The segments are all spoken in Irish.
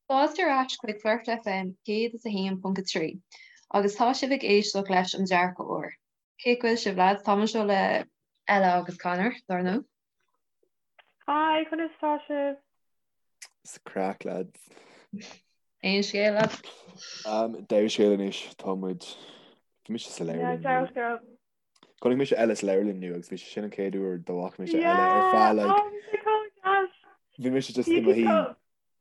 Fáilte ar ais chuig Flirt FM 101.3 agus tá sibh ag éisteacht leis an Dearcadh Úr. Cén chaoi a bhfuil sibh lads? Táim anseo le Ella agus Conor, dar ndóigh. Hi, conas tá sibh? Is craic lads. Aon scéal lads? Um, dea-scéal anois, tá muid Bhí mise sa leabharlann. Yeah, dea-scéal. Chonaic mise Ella sa leabharlann inniu agus bhí sé sin an chéad uair dá bhfaca mise Ella ar feadh like oh, Bhí mise just i mo shuí.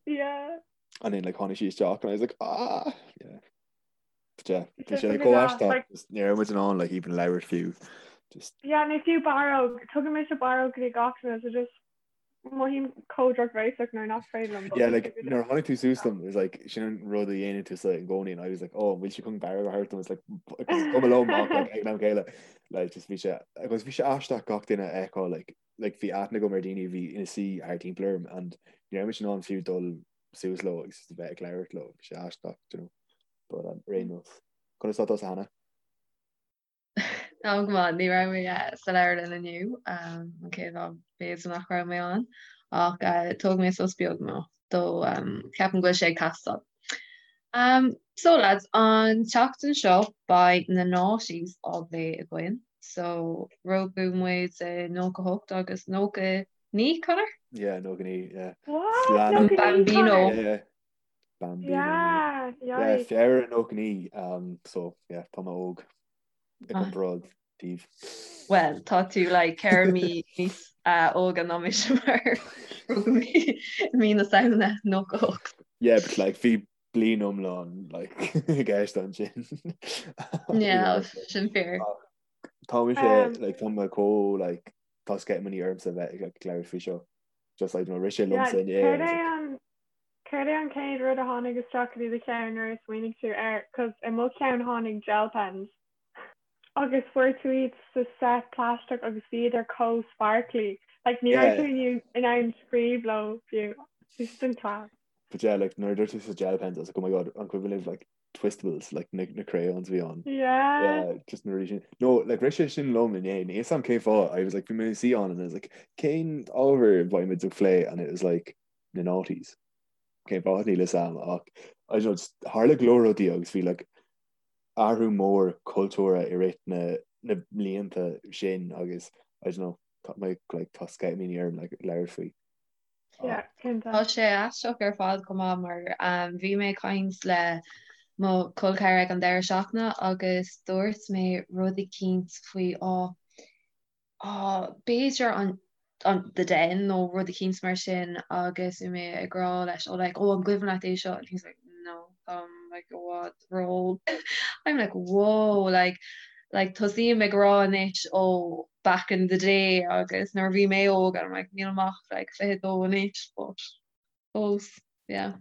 Yeah. And then like tháinig sí isteach and I was like ah yeah. But yeah, bhí sé like chomh aisteach just ní raibh muid in ann like even labhairt fiú. Just Yeah, nó fiú barróg, tugann mise barróg go dtí gach duine so just mothaím chomh drochbhéasach nuair nach féidir liom. Yeah, like nuair a tháinig tú suas dom, it was like sin an rud a dhéanann tú sa i gcónaí and I was like oh, bhfuil sí chun barróg a thabhairt dom? It's like cuma liom ach like ag an am céanna like just bhí sé agus bhí sé aisteach gach duine a fheiceáil like like bhí aithne agam ar daoine a bhí ina suí thart timpeall orm and ní raibh mise in ann fiú dul suas leo agus a bheith ag labhairt leo, bhí sé aisteach, do you know. But um, ar aon nós. Conas tá tusa Hannah? Tá go maith, ní raibh mé eh, sa leabharlann inniu, um, an chéad lá b'fhéidir nach raibh mé ann, ach uh, thóg mé sos beag nó do um, ceapaim go bhfuil sé ag teastáil. Um, so lads, an tseachtain seo beidh na noughties á bplé againn. So rugadh muid i 98 agus 99, Conor? Yeah, 99, yeah. What? Lean- 99, Bambino. Conor? Yeah, yeah. Bambino. Yeah, Yeah, yikes. Feabhra 99, um, so yeah, tá mé óg i Ah. gcomparáid daoibh. Well, tá tú like 4 mí níos uh, óga ná mise mar rugadh mé i mí na Samhna 98. Yeah, but like bhí bliain iomlán like i gceist ansin. Yeah, sin fíor. Tá mise Um, like tá mé chomh like tá sceitimíní ormsa bheith ag like labhairt faoi seo. Just like you know, rith sé Yeah, liomsa inné céard and I was é like, an céard é an chéad rud a tháinig isteach go dtí do cheann nuair a smaoinigh tú air? 'Cause i mo cheann tháinig gel pens. Agus fuair tú iad sa set plaisteach agus bhíodar chomh sparkly. Like ní raibh Yeah. tú in ann scríobh leo fiú. Bhí siad an class. But yeah, like nuair a dúirt tú sa gel pens, I was like, oh my god, an cuimhin libh like twistables, like na, na crayons a bhí ann. Yeah. Yeah, just na rudaí sin. No, like rith sé sin liom inné, níl 'fhios a'm cén fáth, I was like, bhí mé ina suí ann and I was like, cén ábhar a bheidh muid ag plé and it was like, na noughties. Cén fáth níl 'fhios a'm ach I don't know, just tharla go leor rudaí agus bhí like athrú mór cultúrtha i rith na na mblianta sin agus I don't know, tá mé like tá sceitimíní orm like labhairt faoi. Yeah, cinnte. Tá sé aisteach ar fad chomh maith mar bhí mé ag caint le mo chol ceathar ag an deireadh seachtaine agus dúirt mé rud eicínt faoi á á b'fhéidir an an The Den nó rud eicínt mar sin agus bhí mé ag rá leis oh like oh an gcuimhin leat é seo and he's like no táim like i bhfad ró-óg I'm like whoa like like tosaím ag rá anois oh back in the day agus nuair a bhí mé óg and I'm like nílim ach like 22 anois but fós yeah.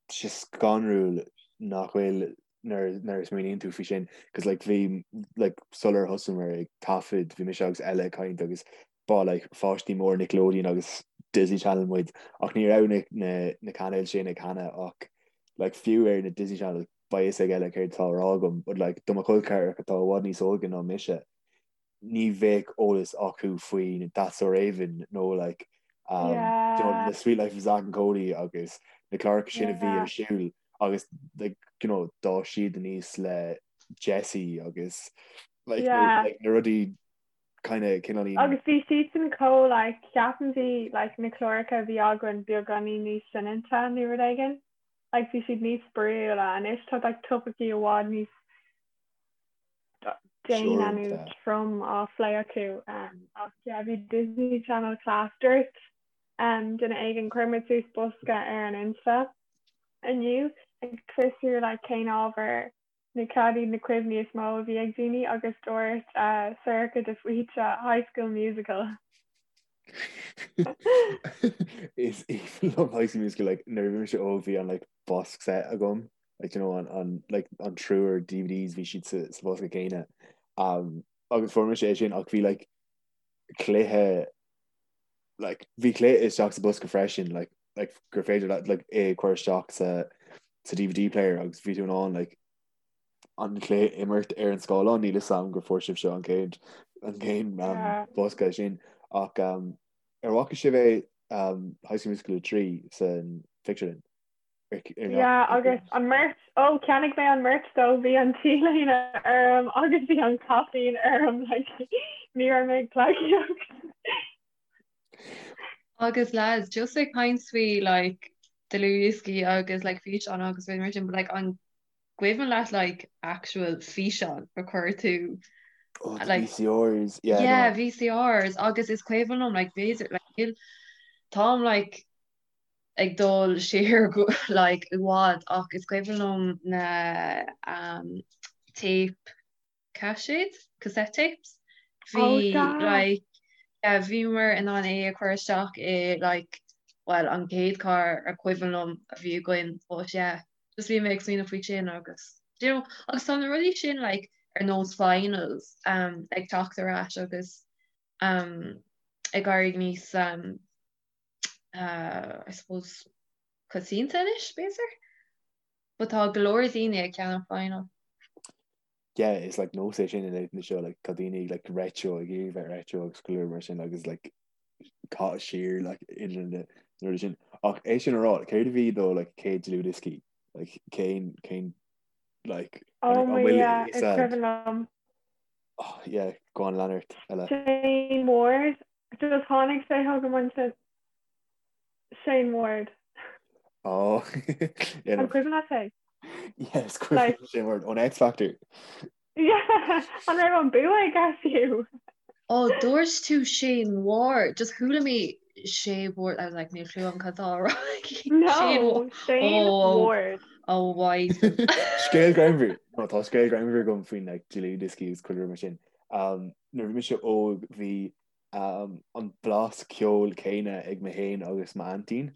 Tá sé scanrúil nach bhfuil nuair nuair a smaoiníonn tú faoi sin cos like bhí like sular thosaíomar ag taifead bhí mise agus Ella ag caint agus ba like pháistí mór Nickelodeon agus Disney Channel muid ach ní raibh na na na cainéil sin ag Hannah ach like fiú ar na Disney Channel beidh fhios ag Ella céard atá á rá agam but like do mo chol ceathracha atá i bhfad níos óige ná mise ní bheadh eolas acu faoi That's So Raven nó like um, yeah. you know, the Suite Life of Zack and Cody agus na cláracha sin a bhí ar siúl agus like, you know, d'fhás siad aníos le Jessie agus like, yeah. like, na rudaí kind of cineál Agus bhí siadsan chomh like, ceapaim bhí like, na cláracha a bhí againn beagáinín níos soineanta nó rud éigin. Like, bhí siad níos spraíúla anois tá like, topaicí i bhfad níos déine nó trom á phlé acu. Ach yeah, bhí Disney Channel class. Dúirt duine éigin, chuir muid suas bosca ar an Insta inniu ag fiosrú like cén ábhar nó cad iad na cuimhní is mó a bhí ag daoine agus dúirt Sorcha de Faoite High School Musical. Is aoibhinn liom High School Musical like nuair a bhí mise óg bhí an like box set agam like you know an an like an triúr DVDs bhí siad sa sa bhosca céanna um, agus fuair mise é sin ach bhí like cluiche like bhí cluiche isteach sa bosca freisin like like gur féidir leat like é a chur isteach sa sa DVD player agus bhí tú in ann like an cluiche imirt ar an scáileán níl 'fhios a'm gur fuair sibh seo an chéad an chéad um, Yeah. bosca sin ach um, ar bhfaca sibh é um, High School Musical 3 san phictiúrlann? Yeah, agus an merch, oh, cheannaigh mé an merch dó, bhí an t-léine orm agus bhí an caipín orm, like, ní raibh mé ag pleidhcíocht. Agus lads, just ag caint faoi like dlúthdhioscaí agus like físeán agus rudaí mar sin, but like an cuimhin leat like actual físeán a chuir tú Oh, the like VCRs, yeah, yeah, no. VCRs agus is cuimhin liom like b'fhéidir like níl táim like ag dul siar go like i bhfad ach is cuimhin liom na um tape caiséid, cassette tapes, Oh, bhí sea. like yeah bhíomar in ann é a chur isteach i like bhuel an chéad carr a cuimhin liom a bhí againn but yeah just bhí mé ag smaoineamh faoi sin agus you know agus tá na rudaí sin like ar nós vinyls um ag teacht ar ais agus um ag éirí níos um uh I suppose coitianta anois b'fhéidir? But tá go leor daoine ag ceannach vinyl. Yeah, is like nós é sin in éadan seo like tá daoine like retro ag iarraidh bheith retro agus go leor mar sin agus like caitheamh siar like idir na rudaí sin. Ach é sin a rá, céard a bhí do like céad dlúthdhioscaí? Like cén cén like Oh an my bhfuil yeah, a is fhios a'd? cuimhin liom. Oh yeah, go on lean ort Ella. Shane Ward, just tháinig sé chugam ansin. Shane Ward. Oh, yeah, An cuimhin leat é? Yes, cuimhin Shane Ward ón X Factor. Yeah, an raibh an bua aige fiú? Oh, dúirt tú Shane Ward, just chuala mé Shane Ward, I was like, níl clue agam cad tá á rá aici. No, Shane oh, Ward. Oh, why? Scéal greannmhar. No, tá scéal greannmhar agam faoin like, dlúthdhioscaí agus chuile rud mar sin. Um, nuair a bhí mise óg bhí an blas ceoil céanna ag mé féin agus m'aintín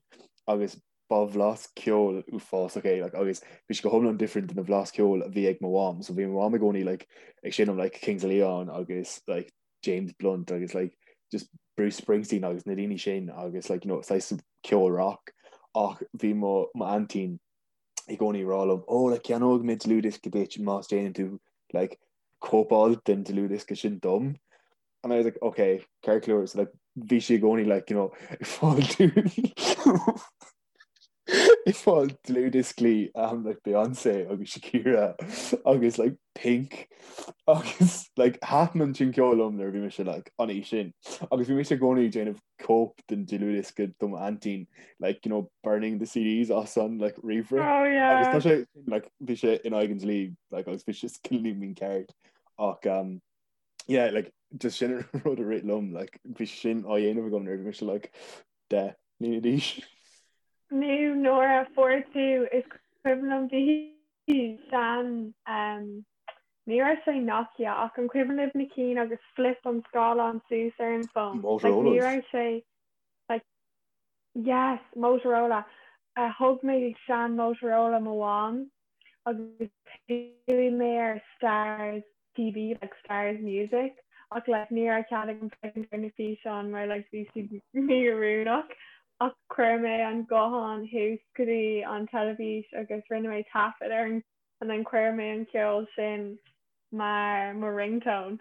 agus ba bhlas ceoil uafásach é like agus bhí sé go hiomlán different den bhlas ceoil a bhí ag mo mham so bhí mo mham i gcónaí like ag seinm like Kings of Leon agus like James Blunt agus like just Bruce Springsteen agus na daoine sin agus like you know saghas ceol rock ach bhí mo m'aintín i gcónaí ag rá liom oh like ceannóidh mé dlúthdhiosca duit más déanann tú like cóipeáil den dlúthdhiosca sin dom And I was like, okay, ceart go leor, so like, bhí sí i gcónaí like, you know, ag fáil ag fáil dlúthdhioscaí um, like Beyonce agus Shakira agus like Pink agus like thaitin an sin ceol liom nuair a bhí mise like an aois sin agus bhí mise i gcónaí ag déanamh cóip den dlúthdhiosca do m'aintín like you know burning the CDs as an like ríomhaire oh, yeah. agus tá sé like bhí sé in aghaidh an dlí like agus bhí sé cineál mícheart ach um, yeah, like, just sin an rud a rith liom, like, bhí sin á dhéanamh agam nuair a bhí mise like, 10 mbliana d'aois. Nó nuair a fuair tú, is cuimhin liom bhí sean, um, ní raibh sé Nokia ach an cuimhin libh na cinn agus flip an scáileán suas ar an bhfón? Like, ní Motorolas. raibh sé, like, yes, Motorola. Uh, thug mé sean Motorola mo mham agus chuaigh mé ar Starz TV like Starz Music ach like ní raibh cead agam féachaint ar na físeáin mar like bhí siad mí-oiriúnach ach chuir mé an guthán thuas go dtí an teilifís agus rinne mé taifead ar an and then chuir mé an ceol sin mar mo ringtone.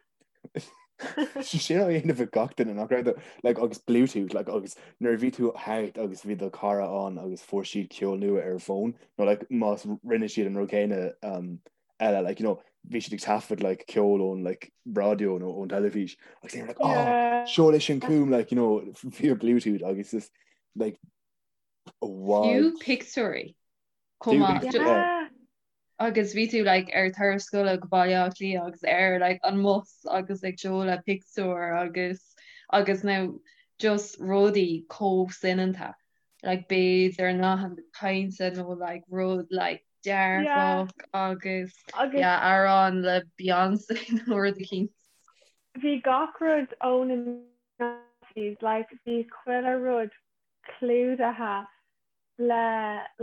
Sin á dhéanamh ag gach duine nach raibh like agus Bluetooth like agus nuair a bhí tú thart agus bhí do chara ann agus fuair siad ceol nua ar a bhfón nó like más rinne siad an rud céanna um, eile like you know bhí siad ag taifead like ceol ón like raidió nó ón teilifís agus they were like oh Yeah. seol é sin chugam like you know via Bluetooth agus just like Fiú what pictiúirí chomh maith. Fiú Yeah. Agus bhí tú like ar turas scoile go Baile Átha Cliath agus ar like an mbus agus ag seoladh pictiúr agus agus now just rudaí chomh soineanta like b'fhéidir nathanna cainte nó like rud like Yeah. dearfach agus Agus yeah amhrán le Beyonce nó rud eicínt. bhí gach rud ó na 90s like bhí chuile rud clúdaithe le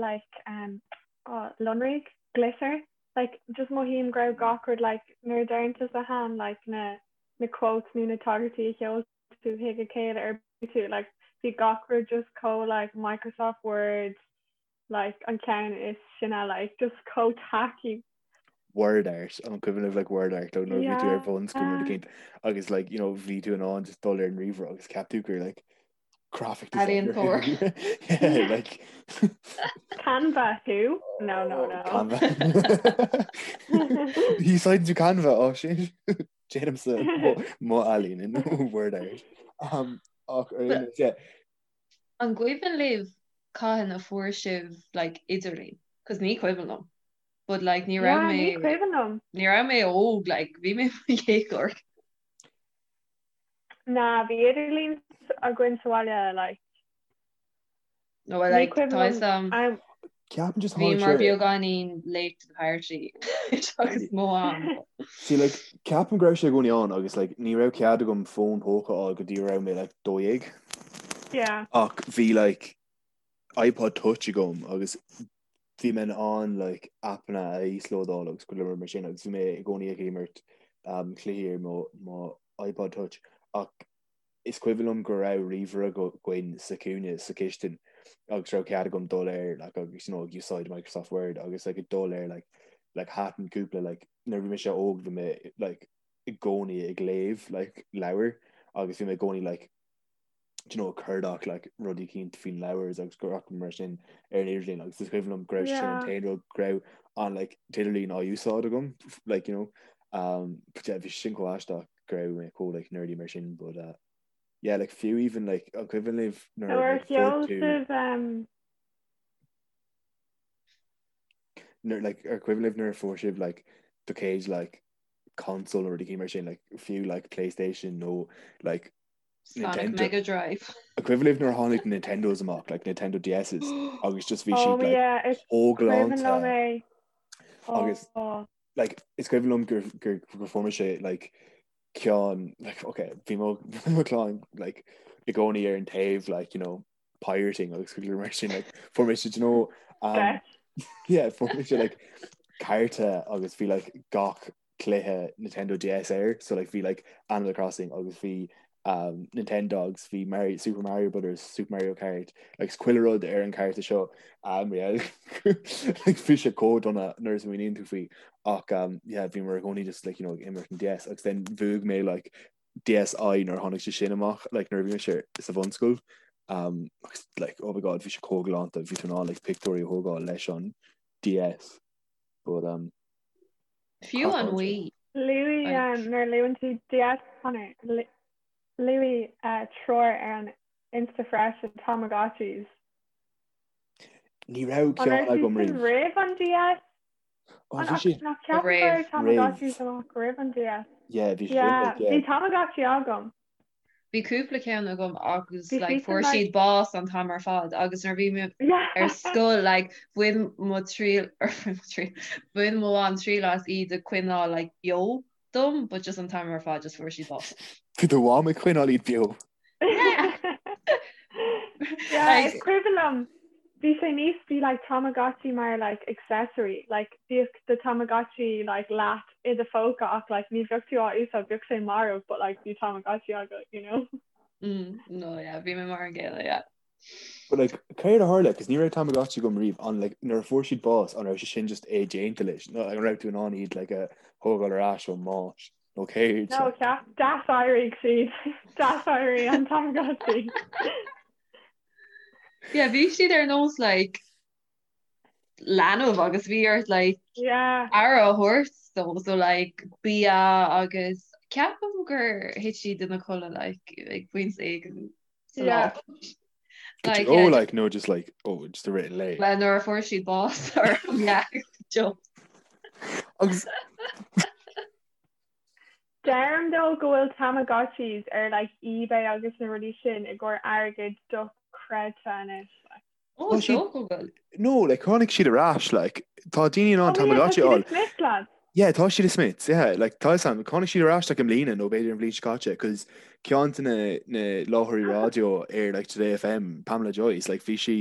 like um oh lonraigh glitter like just mothaím go raibh gach rud like nuair a deireann tusa Han like na na quotes nó na tagairtí a sheol tú chuig a chéile ar tú like bhí gach rud just chomh like Microsoft Word like an ceann is sine like just chomh tacky. Word art an cuimhin libh like word art ó nuair bhí tú ar Yeah. bhunscoil nó rud eicínt agus like you know bhí tú in ann just dul ar an ríomhaire agus ceap tú gur like. Graphic designer. Ealaíontóir. Yeah, like Canva who? No, no, no. Canva. Úsáideann tú Canva ó sin déanaimse mo ealaín in Word art. Um, ach ar aon nós, yeah. An gcuimhin libh cathain a fuair sibh like idirlíon? Cos ní cuimhin liom. But like ní raibh Yeah, mé ní cuimhin liom. ní raibh mé óg like bhí mé i mo dhéagóir. Ná, bhí idirlíon againn sa bhaile like. No, well, Ní like, cuimhin tá liom fhios a'm, am. Ceapaim just tháinig bhíomar sé beagáinín late to the party agus mo am. See like ceapaim go raibh sé i gcónaí ann agus like ní raibh cead agam fón póca a fháil go dtí go raibh mé like 12. Yeah. Ach bhí like iPod Touch agam agus bhí mé in ann like aipeanna a íoslódáil agus go leor mar sin agus bhí mé i gcónaí ag imirt um, cluichí ar mo, mo iPod Touch ach is cuimhin liom go raibh ríomhaire againn sa chúinne sa chistin agus raibh cead agam dul air like, agus you know, ag úsáid Microsoft Word agus like, ag dul air like, like, thaitin cúpla like, nuair bhí mise óg bhí mé like, i gcónaí ag léamh like, leabhair agus bhí mé i gcónaí like, you know, cuardach like, rudaí eicínt faoin leabhar agus go raibh mar sin ar an idirlíon agus is cuimhin liom go raibh sin an Yeah. t-aon rud go raibh an like, t-idirlíon á úsáid agam like, you know, um, but yeah, bhí sin chomh aisteach go raibh mé chomh like, nerdy mar sin but uh, yeah, like, fiú even like, an cuimhin libh nuair Nuair like, sheol fuair tú sibh um, nuair like, ar cuimhin libh nuair a fuair sibh like, do chéad like, console nó rud eicínt mar sin like, fiú like, PlayStation nó like, Sonic Nintendo. Mega Drive. An cuimhin libh nuair a tháinig na Nintendos amach, like Nintendo DSs, agus just bhí Oh siad like yeah, is chomh cuimhin liom galánta é. agus Oh. like is cuimhin liom gur gur gur fuair mise like ceann like okay bhí mo mo chlann like i gcónaí ar an taobh like you know pirating agus go leor mar sin like fuair mise do you know um, Stretch. yeah fuair mise like cárta agus bhí like gach cluiche Nintendo DS air so like bhí like Animal Crossing agus bhí um, Nintendogs bhí Mario, Super Mario Brothers Super Mario Kart like chuile rud ar an cárta seo um, yeah, like bhí sé chomh dona nuair a smaoiníonn tú faoi ach um, yeah, bhí mar i gcónaí just like, you know, ag imirt an DS agus then bhuaigh mé like DSi nuair a tháinig sé sin amach like nuair a bhí mise sa bhunscoil um, agus like oh my god bhí sé chomh galánta bhí tú in ann like pictiúirí a thógáil leis an DS but um, Fiú an Wii. Luaigh nuair a luann tú DS Conor, luaigh treoir ar an Insta freisin, Tamagotchis. Ní raibh ceann agam riamh. Roimh an DS? Ó, bhí siad. Nach ceapaim go raibh Tamagotchis amach roimh an DS. Yeah, bhí siad. Bhí Tamagotchi agam. Bhí cúpla ceann agam agus like fuair siad bás an t-am ar fad agus nuair bhí mé ar scoil like bhain mo triail bhain mo mham triail as iad a coinneáil like beo dom but just an t-am ar fad just fuair siad bás. Bhí do mham ag coinneáil iad beo. Yeah, is cuimhin liom bhí sé níos bhí like Tamagotchi mar like accessory like bhíodh do Tamagotchi like leat i do phóca ach like ní bheadh tú á úsáid bheadh sé marbh but like bhí Tamagotchi agat you know. Mm, no yeah, bhí mé mar an gcéanna yeah. But like céard a tharla cos ní raibh Tamagotchi agam riamh an like nuair a fuair siad bás an raibh sé sin just é déanta leis nó like, an raibh tú in ann iad like a thógáil ar ais ón mbás nó céard No ceap d'aséirigh siad d'aséirigh an Tamagotchi. Yeah, bhí siad ar nós like leanbh agus bhí ort like Yeah. aire a thabhairt dó so like bia agus ceapaim gur thit siad ina codladh like ag pointe éigin sa lá. Yeah. Like, oh yeah, like no just like oh just i rith an lae. Well nuair a fuair siad bás or yeah, joke. Agus Deirim though go bhfuil Tamagotchis ar like eBay agus na rudaí sin i gcomhair airgead dochreidte anois like. Oh, is dócha go bhfuil. No, like tháinig siad ar ais, like tá daoine in ann Oh yeah, tá Tamagotchi a siad i fháil. Smyths, lads. Yeah, tá siad i Smyths, yeah, like tá fhios a'm, tháinig siad ar ais like i mbliana nó b'fhéidir an bhliain seo caite, cos ceann de na na láithreoirí raidió ar like Today FM, Pamela Joyce, like bhí sí,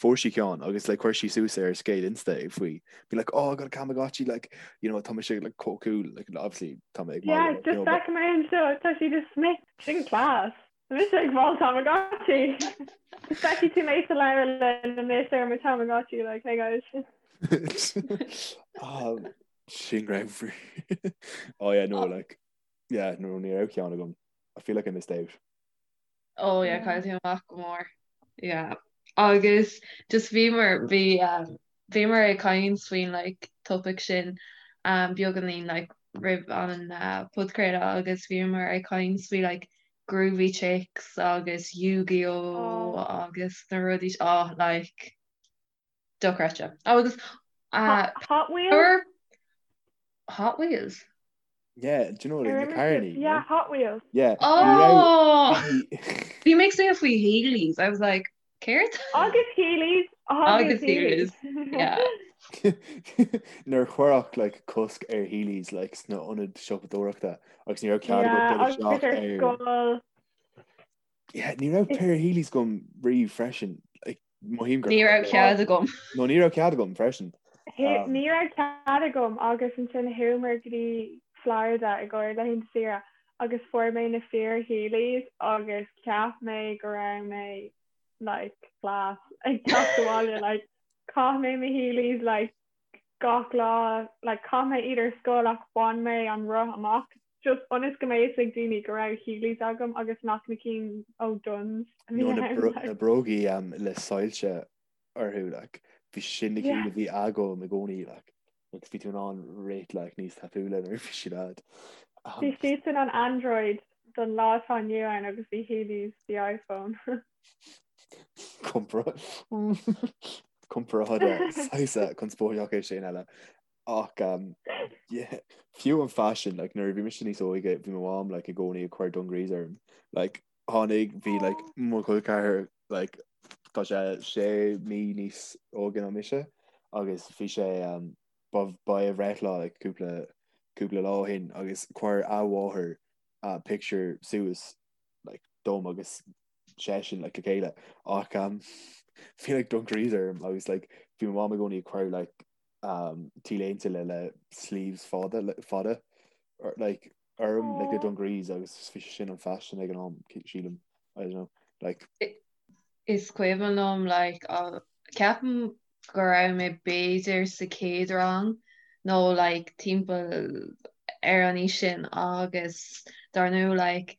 fuair sí ceann agus like chuir sí suas ar a scéal Insta faoi, be like, oh I got a Tamagotchi, like, you know, tá mise like chomh cool, like obviously tá mé ag Yeah, magadh, you just know, but feicim é anseo, tá siad i Smyths, sin class. Tá mise ag fáil Tamagotchi. Feicfidh tú mé sa leabharlann anois ar mo Tamagotchi, like, hey guys. Um, sin greannmhar. Oh yeah, no, like, yeah, no, ní raibh ceann agam. I feel like I missed out. Oh yeah, caillfidh tú amach go mór. Yeah. Agus just bhíomar bhí um, bhíomar ag caint faoin like topic sin um, beagáinín like roimh an uh, podchraoladh agus bhíomar ag caint faoi like Groovy Chicks agus Yu-Gi-Oh oh. agus na rudaí oh like dochreidte. Agus uh, Hot Wheels? Hot Wheels? Yeah, do you know like na carrannaí? Yeah, Hot Wheels. Yeah. Oh! Bhí mé ag smaoineamh faoi Heelys. I was like, céard? Agus Heelys. Agus Heelys. Yeah. Nuair a cuireadh like cosc ar Heelys like sna ionaid siopadóireachta agus ní raibh cead agat dul isteach ar scoil. Yeah, ní raibh pair Heelys agam riamh freisin. Like, Mothaím gur Ní raibh cead agam. No ní raibh cead agam freisin. Ní raibh cead agam agus ansin chuamar go dtí Florida i gcomhair laethanta saoire agus fuair mé na fíor Heelys agus cheap mé go raibh mé like class ag teacht abhaile like chaith mé mo Heelys like gach lá like chaith mé iad ar scoil ach bhain mé an roth amach just ionas go mbeadh fhios ag daoine go raibh Heelys agam agus nach na cinn ó Dunnes a bhí Nó na ann like. na brógaí um, le soilse orthu like bhí sin na cinn Yeah. a bhí agam i gcónaí like agus bhí tú in ann rith like níos tapúla nuair a bhí siad a'd. Um, Bhí siadsan an Android don lá atá inniu ann agus bhí Heelys the iPhone. Comparáid saghas conspóideach é sin eile. Ach um, yeah, fiú an faisean, like, nuair a bhí mise níos óige, bhí mo mham like, i gcónaí ag cur dungarees orm. Like, tháinig, bhí like, mo chol ceathar like, tá sé sé mí níos óige ná mise agus bhí sé um, ba, ba é a bhreithlá like, cúpla, cúpla lá ó shin agus chuir a mháthair uh, picture suas like, dom agus seisean like, le chéile ach um, bhí like, dungarees orm agus like, bhí mo mham i gcónaí ag cur like, um, T-léinte le le sleeves fada le, fada or, like, orm like, le dungarees agus bhí sé sin an fashion ag an am sílim I don't know like Is cuimhin liom like, uh, ceapaim go raibh mé b'fhéidir sa chéad rang nó like timpeall ar an aois sin agus dar ndóigh like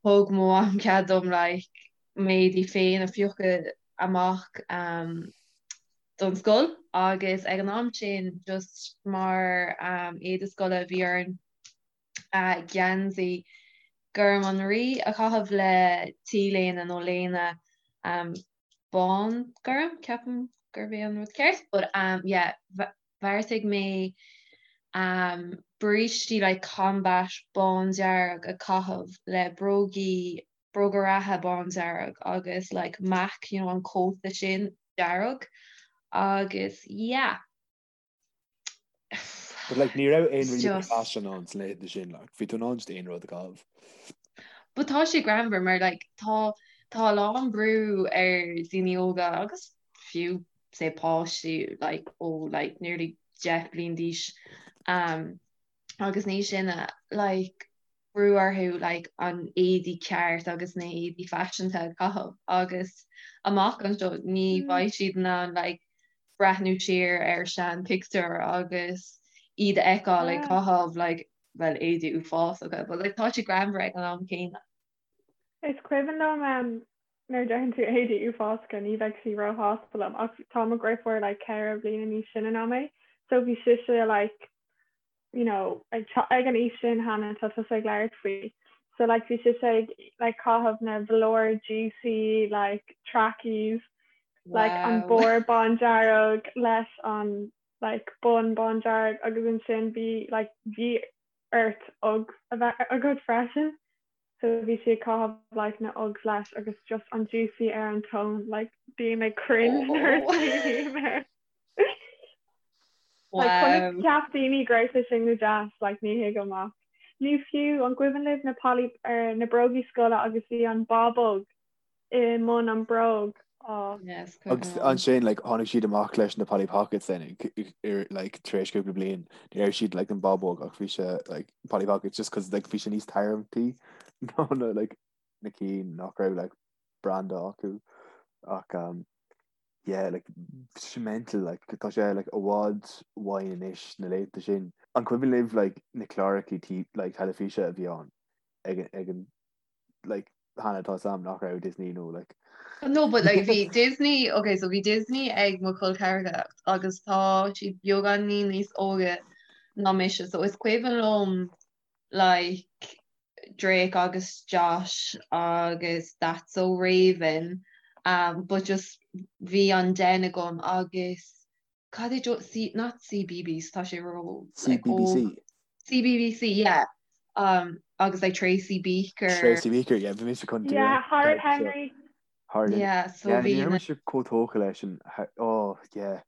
thug mo mham cead dom like m'éadaí féin a phiocadh amach um, don scoil agus ag an am sin just mar um, éide scoile bhí orainn geansaí gorm an rí a chaitheamh le T-léine nó léine um, bán gorm, ceapaim gurb é an rud ceart, but um, yeah, bheartaigh mé um, brístí like combat bándearg a chaitheamh le brógaí bróga reatha bándearg agus like mac, you know, an cóta sin dearg agus yeah. But like ní raibh aon really fashion ann sna laethanta sin like bhí tú in ann just aon rud a chaitheamh. But tá sé greannmhar mar like tá tá a lán brú ar daoine óga agus fiú say páistí like ó like nearly 10 bliain d'aois um, agus níos sine like brú orthu like an éadaí ceart agus na héadaí faiseanta a chaitheamh agus amach anseo ní bheidh siad in ann like breathnú siar ar sean pictiúr agus iad a fheiceáil ag caitheamh like well éadaí uafásacha but like tá sé greannmhar ag an am céanna. Is cuimhin liom um, nuair a deireann tú éadaí uafásacha ní bheidh sí róshásta liom ach tá mo dheirfiúr like 4 bliana níos sine ná mé so bhí sise like you know, ag ag an aois sin cheana tá tusa ag labhairt faoi. So like bhí sise ag like caitheamh na velour juicy like trackies like an Wow. barr bándearg leis an like bun bándearg agus ansin bhí like bhí ort Uggs a bheith agat freisin. So bhí sí ag caitheamh like na Uggs leis agus just an juicy ar an tóin like bím ag cringe nuair a smaoiním air. Like, conas Wow. cheap daoine go raibh sé sin go deas, like, ní thuigim ach. Nó fiú, an gcuimhin libh na Polly, er, na brógaí scoile agus bhí an bábóg i mbun an bróg? Oh. Yes, cuimhin Agus liom. ansin like, tháinig siad amach leis na Polly Pockets then ar, like, tar éis cúpla bliain. Ní raibh siad like, an bábóg ach bhí sé like, Polly Pockets just cause like, bhí sé níos tarraingtí ná na, like, na cinn nach raibh like, branda acu. Ach um, yeah like it's mental like tá sé like i bhfad uainn anois na laethanta sin. An cuimhin libh like na cláracha tí like teilifíse a bhí ann ag ag an like. Hannah tá 'fhios a'm nach raibh Disney nó like. No but like bhí Disney ok so bhí Disney ag mo chol ceathracha agus tá siad beagáinín níos óige ná mise so is cuimhin liom like Drake agus Josh agus That's So Raven um but just bhí an den agam agus cad é jo C not CBeebies tá sé ró like CBBC. óg CBBC yeah um agus like Tracy Beaker Tracy Beaker yeah bhí mise chun Yeah Horrid Henry. Horrid yeah so yeah bhí ní raibh na mise chomh tógtha leis an oh yeah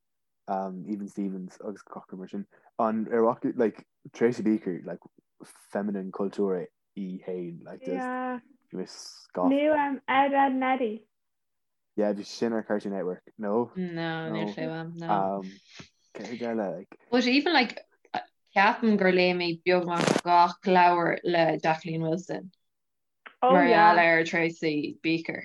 um Even Stevens agus gach rud mar sin an ar mhac like Tracy Beaker like feminine cultúr í féin like just Yeah. bhí mé scafa. Nó um Ed Edd n Eddy. Yeah, bhí sin ar Cartoon Network. No? No, níl No. sé uaim, no. Um, céard eile, like, But even like, ceapaim gur léigh mé beagnach gach leabhar le Jacqueline Wilson Oh mar gheall yeah. ar Tracy Beaker.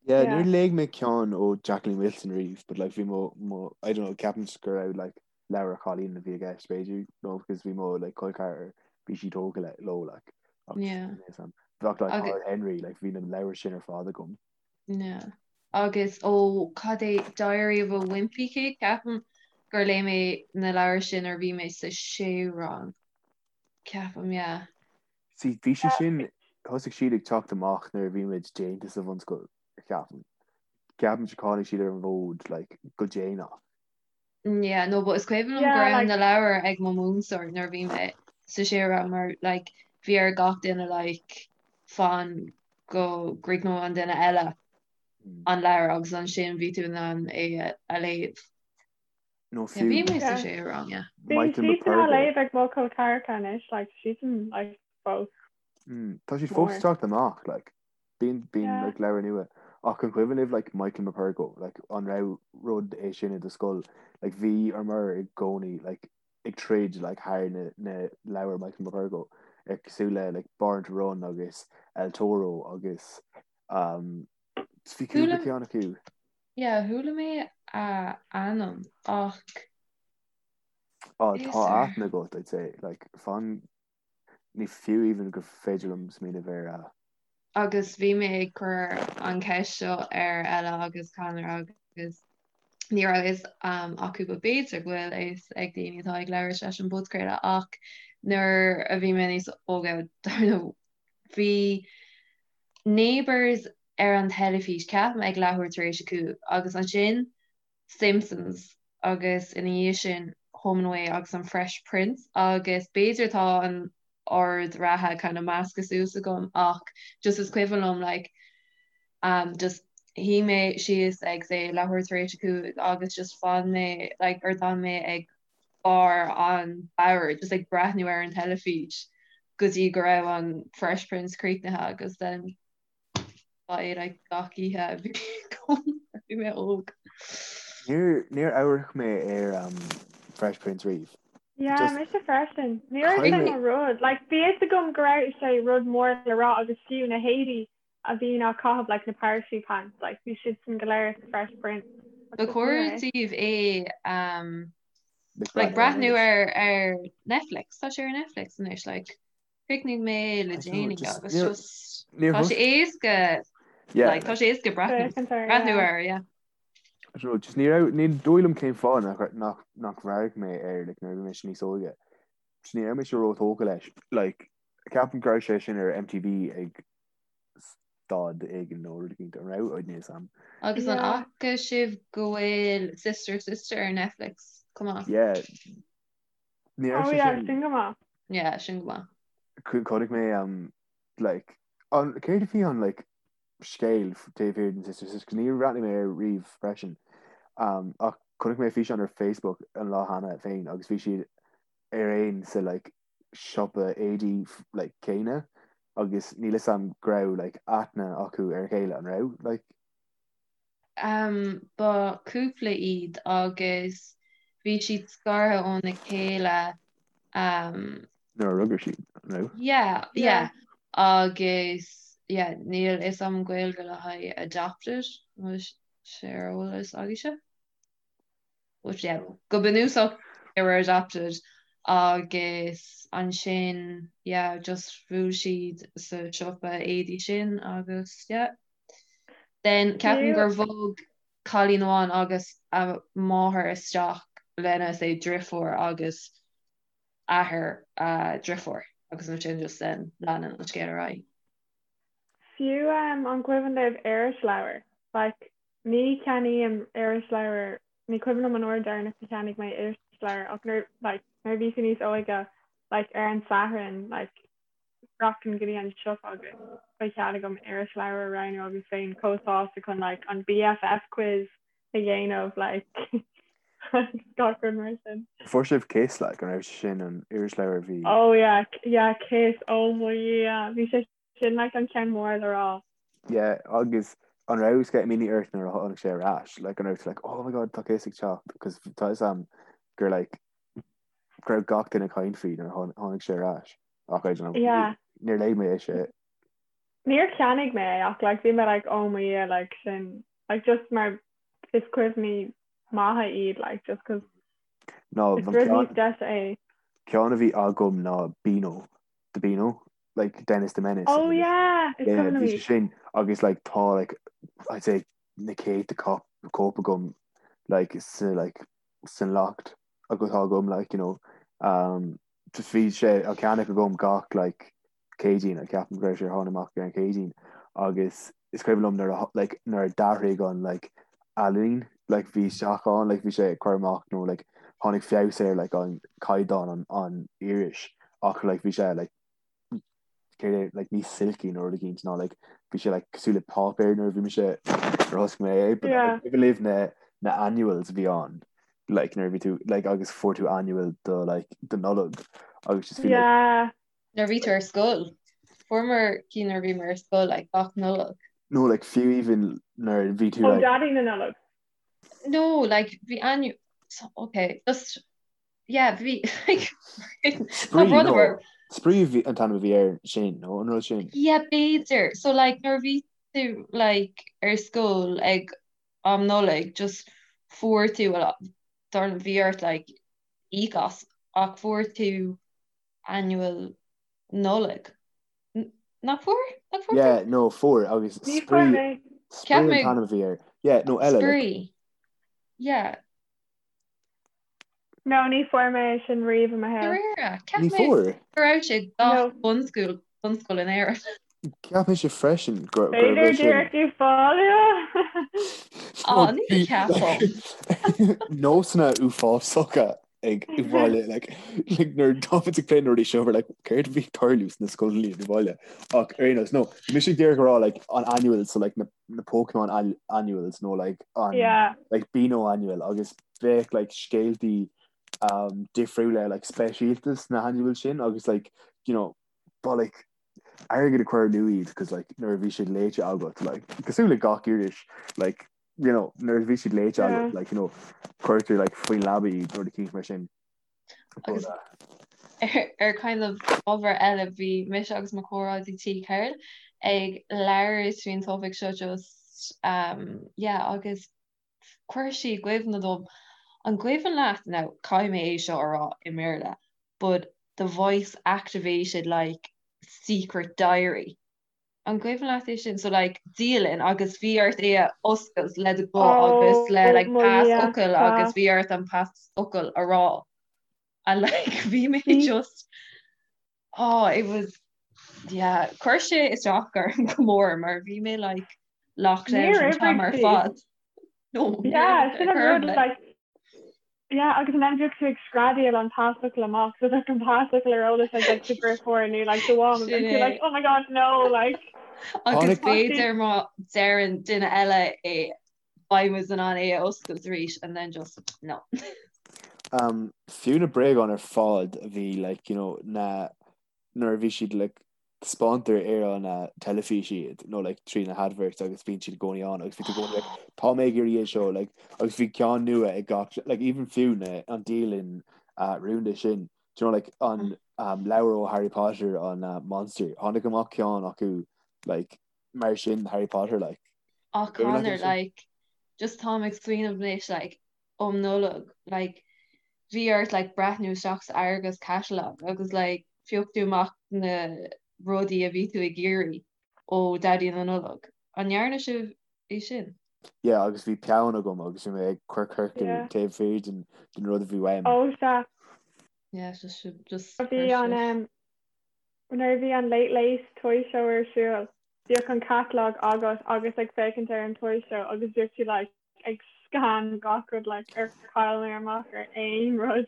Yeah, Yeah. níor léigh mé ceann ó Jacqueline Wilson riamh, but like bhí mo, mo, I don't know, ceapaim go raibh like leabhair chailín a bhí i gceist b'fhéidir, no, because bhí mo like col ceathrar, bhí sí tógtha le, leo like. Ach, Yeah. níl 'fhios a'm. Bheadh like Agus, Horrid Henry, like bhí na leabhair sin ar fad agam. yeah. Agus ó cad é Diary of a Wimpy Kid, ceapaim gur léigh mé na leabhair sin nuair a bhí mé sa séú rang. Ceapaim, yeah. See, bhí sí sin, thosaigh siad ag teacht amach nuair a bhí muid déanta sa bhunscoil, ceapaim. Ceapaim gur tháinig siad ar an bhfód, like, go déanach. Yeah, no, but is cuimhin liom go Yeah, raibh like, na leabhair ag mo mhúinteoir nuair a bhí mé sa séú rang mar, like, bhí ar gach duine, like, fan go gcríochnódh an duine eile Mm. an leabhar agus ansin bhí tú in ann é a léamh. Nó Yeah, bhí fiú mé sa yeah. séú rang, yeah. Bíonn Michael siadsan á Morpurgo. léamh ag mo chol ceathracha anois, like, siadsan, like, fós Mm, tá siad fós mór. ag teacht amach, like, bíonn, bíonn, Yeah. like, leabhair nua. Ach an cuimhin libh, like, Michael Morpurgo, like, an raibh rud é sin i do scoil? Like, bhíomar i gcónaí, like, ag troid, like, thar na, na leabhair Michael Morpurgo, ar cosúil le, like, Born to Run agus El Toro agus, um, bhí cúpla Chuala, ceann acu. yeah, chuala mé a ainm ach Á, is tá ar. aithne agat, I'd say, like, fan, ní fiú even gur féidir liom smaoineamh ar a. Agus bhí mé ag cur an cheist seo ar Ella agus Conor agus ní raibh fhios acu but b'fhéidir go bhfuil a fhios ag daoine atá ag labhairt leis an bpodchraoladh ach nuair a bhí mé níos óige dar ndóigh bhí Neighbours ar an teilifís ceapaim ag leathuair tar éis a 5 agus ansin Simpsons agus ina dhiaidh sin Home and Away agus an Fresh Prince agus b'fhéidir tá an ord reatha kind of measctha suas agam ach just is cuimhin liom like um just shuigh mé síos ag say leathuair tar éis a 5 agus just fan mé like or d'fhan mé ag barr an bhoird just ag breathnú ar an teilifís go dtí go raibh an Fresh Prince críochnaithe agus then Ba é like gach oíche a bhí agam nuair a bhí mé óg. Níor níor amharc mé ar um, Fresh Prince riamh. Yeah, Just mise freisin. Ní raibh sé caithfidh mé mo rud. Like, bhí fhios agam go raibh sé rud mór le rá agus fiú na héadaí a bhíonn á caitheamh like na parachute pants, like bhí siadsan go léir sa Fresh Prince. Ach Ba just ní chóir raibh. daoibh é um, like like breathnú breathnú air ar ar Netflix. Tá sé ar Netflix anois like Chríochnaigh mé é le I don't know, déanaí just agus níor just níor tá sé thos éasca yeah like tá like sé éasca breathnú Féachaint air, breathnú yeah. air yeah. I don't know, just ní raibh ní dóigh liom cén fáth nach nach nach radharc mé air like nuair a bhí mise níos óige. Just ní raibh mise róthógtha leis. Like ceapaim go raibh sé sin ar MTV ag stad éigin nó rud éicint an raibh níl 'fhios a'm. Agus an Yeah. fhaca sibh go bhfuil Sister Sister ar Netflix chomh maith? Yeah Ní raibh Oh sé yeah, sin sin go maith. Yeah, sin go maith. Chonaic mé um like an céard a bhí an like scéal taobh thiar den Sister Sister níor bhreathnaigh mé air riamh freisin um ach chonaic mé físeán ar Facebook an lá cheana féin agus bhí siad ar aon sa like siopa éadaí like céanna agus níl 'fhios a'm go raibh like aithne acu ar a chéile an raibh like Um, ba cúpla iad agus bhí siad scartha óna chéile um, Nuair a rugadh siad, an raibh? yeah, Yeah. yeah. Agus yeah, níl fhios a'm Gaeilge le haghaidh adopted, an bhfuil sé ar eolas agaibhse? But yeah, go bunúsach they were adopted. Agus ansin yeah just bhuail siad sa siopa éadaí sin agus yeah. Then ceapaim gur bhog cailín amháin agus a máthair isteach lena say driofúr agus athair a driofúr agus ansin just then leanann an scéal ar aghaidh. Fiú an cuimhin libh irisleabhar? Like Ní cheannaím irisleabhar, ní cuimhin liom an uair deireanach a cheannaigh mé irisleabhar ach nuair, like, nuair a bhí tú níos óige, like, ar an Satharn, like, rachainn go dtí an siopa agus ba chead agam irisleabhar a roghnú agus bheinn chomh sásta chun, like, an BFF quiz a dhéanamh, like, gach rud mar sin. Fuair sibh Kiss, like, an raibh sé sin an irisleabhar a bhí? Oh yeah, yeah, Kiss, oh my yeah, bhí sé Sin like an ceann mór le rá. Yeah, agus an raibh sceitimíní ort nuair a tháinig sé ar ais? Like an raibh tú like, oh my god, tá Kiss ag teacht, because tá fhios a'm gur like go raibh gach duine ag caint faoi nuair a tháinig sé ar ais. Ach I don't know, Yeah. níor léigh mé é sé. Níor cheannaigh mé é ach like bhí mé like oh my yeah like sin like just mar is cuimhní maithe iad like just cause No, is rud níos deise é. Ceann a bhí agam ná Beano, the Beano. like Dennis the Menace. Oh yeah, is Yeah, cuimhin bhí liom sé sin agus like tá like I'd say na céadta cóip cóip agam like sa like san loft agus tá agam like you know um just bhí sé á cheannach agam gach like Céadaoin I ceapaim go raibh sé ar tháinig amach ar an Chéadaoin agus is cuimhin liom nuair a like nuair a d'athraigh an like ealaín like bhí isteach ann like bhí sé ag cur amach nó like tháinig feabhas ar like an caighdeán an an iris ach like bhí sé like céard é like níos silky nó rud éicint ná like bhí sé like cosúil le páipéar nuair a bhí mise nuair a thosaigh mé é but Yeah. like, libh na na annuals a bhí ann like nuair a bhí tú like agus fuair tú annual do like do Nollag agus just bhí like Yeah. Nuair a bhí tú ar scoil. Fuaireamar cinn nuair a bhíomar ar scoil like gach Nollaig. no like fiú even nuair a bhí tú Ó like Daidí na Nollag. No like bhí annual so, okay just yeah bhí like Spraoi no Spraoi bhí an t-ainm a bhí air sin nó an rud sin. Yeah b'fhéidir so like nuair a bhí tú like ar scoil ag am Nollaig just fuair tú well dar bhí ort like íoc as ach fuair tú annual Nollag. Nach fuair? Nach fuair Yeah, tú? no, fuair agus Ní fuair Spraoi mé. Cheap Spraoi an mé t-ainm a bhí air. Yeah, no eile like Spraoi. Yeah. No, ní fuair mé é sin riamh i mo shaol. Dáiríre, cheap Ní mé fuair. go raibh sé gach No. bunscoil bunscoil in Éirinn. Cheap mise freisin gur gurbh B'fhéidir é sin. díreach ag fáil. Á, ní cheapaim. Nósanna uafásacha ag baile like like nuair táimid ag plé na rudaí seo we're like céard a bhí ag tarlú sna scoileanna i bhaile ach ar aon nós no mise ag d'iarraidh a rá like an annual so like na na Pokemon annuals nó like an Yeah. like Beano annual agus bheadh like scéaltaí um, difriúla like speisialta sna annual sin agus like you know ba like airgead a chur amú iad cos like nuair a bhí siad léite agat like cosúil le gach iris like you know nuair a bhí siad léite Yeah. agat like you know cuirtear like faoin leaba iad nó rud eicínt mar sin But, Agus uh, ar ar kind of ábhar eile bhí mise agus mo chomrádaí tí Carol ag labhairt faoin topaic seo just um, yeah agus chuir sí i gcuimhne dom an gcuimhin leat now caithfidh mé é seo a rá i mBéarla but the voice activated like secret diary An gcuimhin leat é sin? So like dialann agus bhí ort é a oscailt le do ghuth agus le Oh like mo Dhia, pasfhocal agus tá. bhí ort an pasfhocal a rá. And like bhí mé Bhí. just oh it was yeah chuir sé isteach orm go mór mar bhí mé like locked out Níor an t-am oibrigh ar sí. fad. No, níor Yeah, sin oibrigh an ar rud bith. like yeah agus an bhíodh tú ag screadaíl an pasfhocal amach so like an pasfhocal ar eolas ag like do dheirfiúr nó like do mham Sin and tú é. like oh my god no like Agus Tháinig tá sí b'fhéidir má deireann duine eile é beidh muid in ann é a oscailt arís and then just no. Um, fiú na bréagáin ar fad a bhí like you know na nuair a bhí siad like taispeántar ar an teilifís iad nó like trí na hadverts agus bíonn siad i gcónaí ann agus bhí tú i gcónaí like tá mé ag iarraidh é seo like agus bhí ceann nua ag gach like even fiú na an dialann uh, rúnda sin do you know like an um, leabhar ó Harry Potter an uh, Monster tháinig amach ceann acu like mar sin Harry Potter like Ach Cuimhin leat Conor é sin? like just táim ag smaoineamh anois like um Nollag like. Bhí ort like breathnú isteach sa Argos catalog agus like phioc tú amach na rudaí a bhí tú ag iarraidh ó Daidí na Nollag. An ndearna sibh é sin? Yeah agus bhí peann agam agus bhí mé ag cur ciorcal Yeah. taobh thiar den den rud a bhí uaim. Oh sea. Yeah, just sibh just Bhí an um, nuair a bhí an Late Late Toy Show ar siúl, bhíodh an catalog agat agus ag féachaint ar an Toy Show agus bhíodh tú like ag scan gach rud like ar chaill mé amach ar aon rud.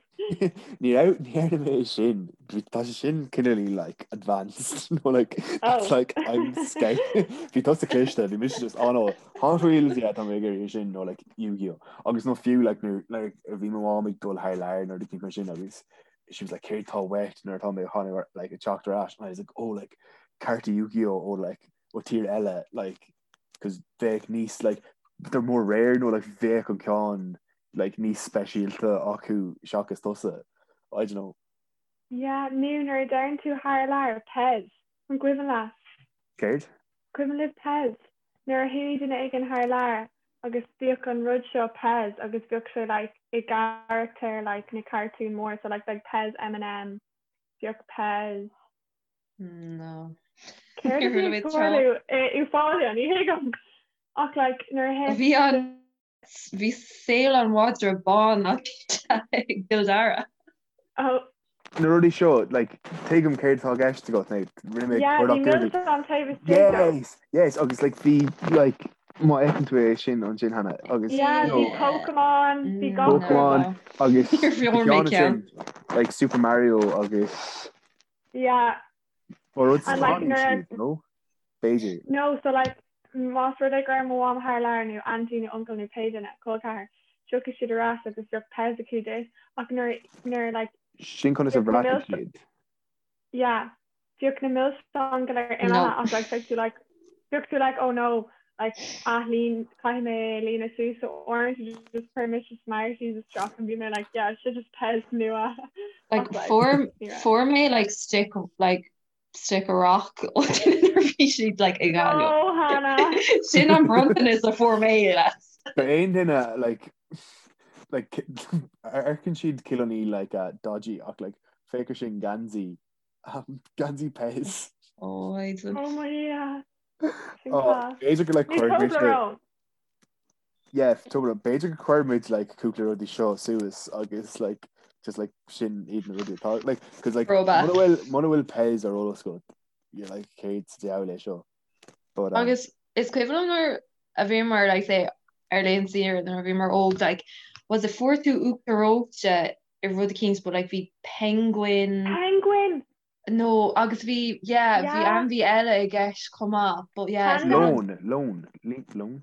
Ní raibh ní dhearna mé é sin Bhí- tá sé sin cineál like advanced nó like that's Oh. like I'm scout Bhí tusa cliste bhí mise just oh no Hot Wheels yeah tá mé ag iarraidh sin nó like Yu-Gi-Oh agus nó fiú like nuair like bhí mo mham ag dul thar lear nuair a bhí mar sin agus she was like céard tá uait nuair atá mé chun like ag teacht ar ais and I was like oh like cártaí Yu-Gi-Oh ó like ó tír eile like cos bheadh níos like they're more rare nó like bheadh an ceann like níos speisialta acu seachas tusa I don't know. Yeah, nó nuair a deireann tú thar lear, Pez. An gcuimhin leat? Céard? Cuimhin libh Pez? Nuair a chuaigh duine éigin thar lear agus bhíodh an rud seo Pez agus bhíodh sé like i gcarachtair like na cartún mór so like bheadh Pez M&M, bhíodh Pez No. Céard a bhí ag tarlú i Euphoria, ní thuigim. Ach like nuair a Bhí an bhí saol an mhadra bán ag gCill Dara. Oh. Na rudaí seo, like, tuigim céard atá i gceist agat, nó rinne mé Yeah, bhí milseáin taobh istigh dó. Yes, yes, agus like bhí like má fheiceann tú é sin ansin cheana agus Yeah, you know, bhí Pokemon, bhí gach rud. Pokemon agus Níor bhí mé ceann. like Super Mario agus Yeah. Ba rud And like nuair a no? B'fhéidir. No, so like más rud é go raibh mo mham thar lear nó auntie nó uncle nó pé duine, col ceathar, tiocfaidh siad ar ais agus bheadh Pez acu duit ach nuair nuair like Sin conas a bheadh na bhreacaigh milse siad. yeah bheadh na milseáin go léir imithe ach like bheadh tú like bheadh tú like oh no like athlíon caithfidh mé é a líonadh suas so uaireanta just chuir mise Smarties isteach and bhí mé like yeah seo just Pez nua Like ach like fuair ní raibh. fuair mé like stick like stick a rock ó duine nuair bhí siad like ag Gaillimh. No Hannah. Sin an bronntanas a fuair mé les. Ba aon duine like like amharcann siad cineál like uh, dodgy ach like féach air sin geansaí um, geansaí Pez. Oh, I don't Oh my yeah. B'fhéidir go like cuirfidh muid Yeah, Toblerone. B'fhéidir go cuirfidh muid like cúpla rudaí seo suas agus like just like sin iad na rudaí atá like cause like Throwback. muna bhfuil muna bhfuil Pez ar eolas agat you're like céard sa diabhal é seo. But um, Agus is cuimhin liom nuair a bhíomar like say ar laethanta saoire nuair a bhíomar óg like was it fuair tú uachtar reoite i rud eicínt but like bhí penguin Penguin! No, agus bhí, yeah, bhí Yeah. ainmhí eile i gceist chomh maith, but yeah, is Panda. Leon, leon, le- leon?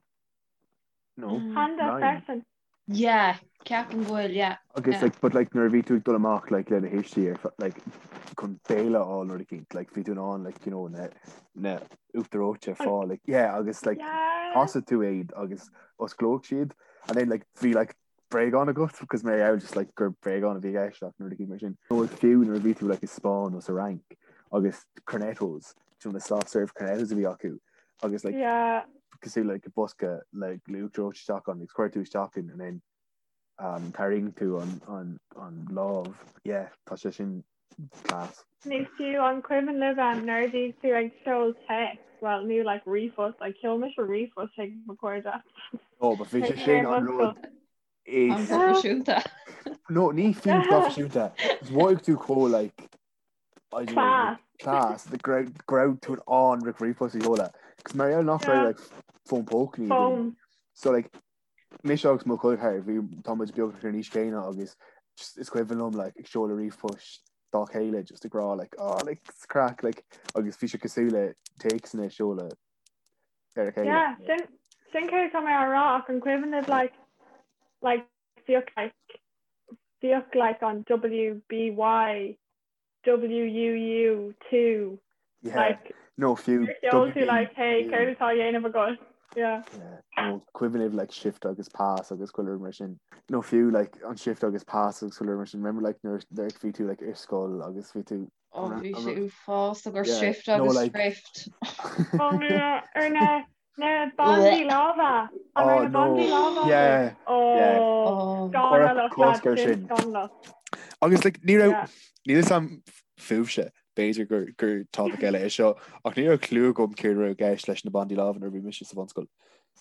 No, Mm. Panda lion. freisin. Yeah, ceapaim go bhfuil, yeah, Agus yeah. like, but like nuair a bhí tú ag dul amach like le do thuistí ar fe- like chun béile a fháil nuair eicínt, like bhí tú in ann like you know na na uachtar reoite a fáil like yeah agus like Yeah. thosaigh tú iad agus osclódh siad and then like bhí like bréagán agat because mar gheall just like gur bréagán a bhí i gceist ach nuair a bhí mar sin. Nó fiú nuair a bhí tú like i Spáinn nó sa Fhrainc agus cornettos, you know, na soft serve cornettos a bhí acu agus like Yeah. cosúil like bosca like le uachtar reoite isteach ann agus chuir tú isteach in and then um, tharraing tú an, an, an lámh. Yeah, tá sé sin class. Nó fiú an cuimhin libh um, nuair a bhí tú ag seoladh téacs, well nó like ríomhphost, like sheol mise ríomhphost chuig mo chairde. Oh, but bhí sé sin an rud is An-phroifisiúnta. No, ní fiú proifisiúnta. Is mhothaigh tú chomh like I don't know, Class. like, class, the go raibh go raibh tú in ann like ríomhphost a sheoladh. Cos mar gheall nach raibh Yeah. like fón póca againn. Phone. So like Mise agus mo chol ceathar, bhí, tá muid beagnach ar an aois chéanna agus just is cuimhin liom like ag seoladh ríomhphoist dá chéile just ag rá like oh like it's craic like agus bhí sé cosúil le téacsanna a seoladh ar a chéile. Yeah, sin sin céard atá mé á rá ach an cuimhin libh like like bhíodh like bhíodh like an WBY WUU 2 Yeah. like No fiú sheol tú like hey céard atá á dhéanamh agat yeah. Yeah. Nó cuimhin libh like shift agus pass agus chuile rud mar sin. Nó fiú like an shift agus pass agus chuile rud mar sin. Remember like nuair nuair bhí tú like ar scoil agus bhí tú Oh, bhí sé uafásach ar Yeah, shift no, agus like- thrift. Oh yeah, ar na. Na bandaí láimhe! An raibh na bandaí láimhe agaibh? Oh, scannalach lads, sin scannalach. Agus like ní raibh, níl a fhios agam fúibhse, b'fhéidir gur gur topic eile é seo, ach ní raibh clue agam céard a raibh i gceist leis na bandaí láimhe nuair a bhí mise sa bhunscoil.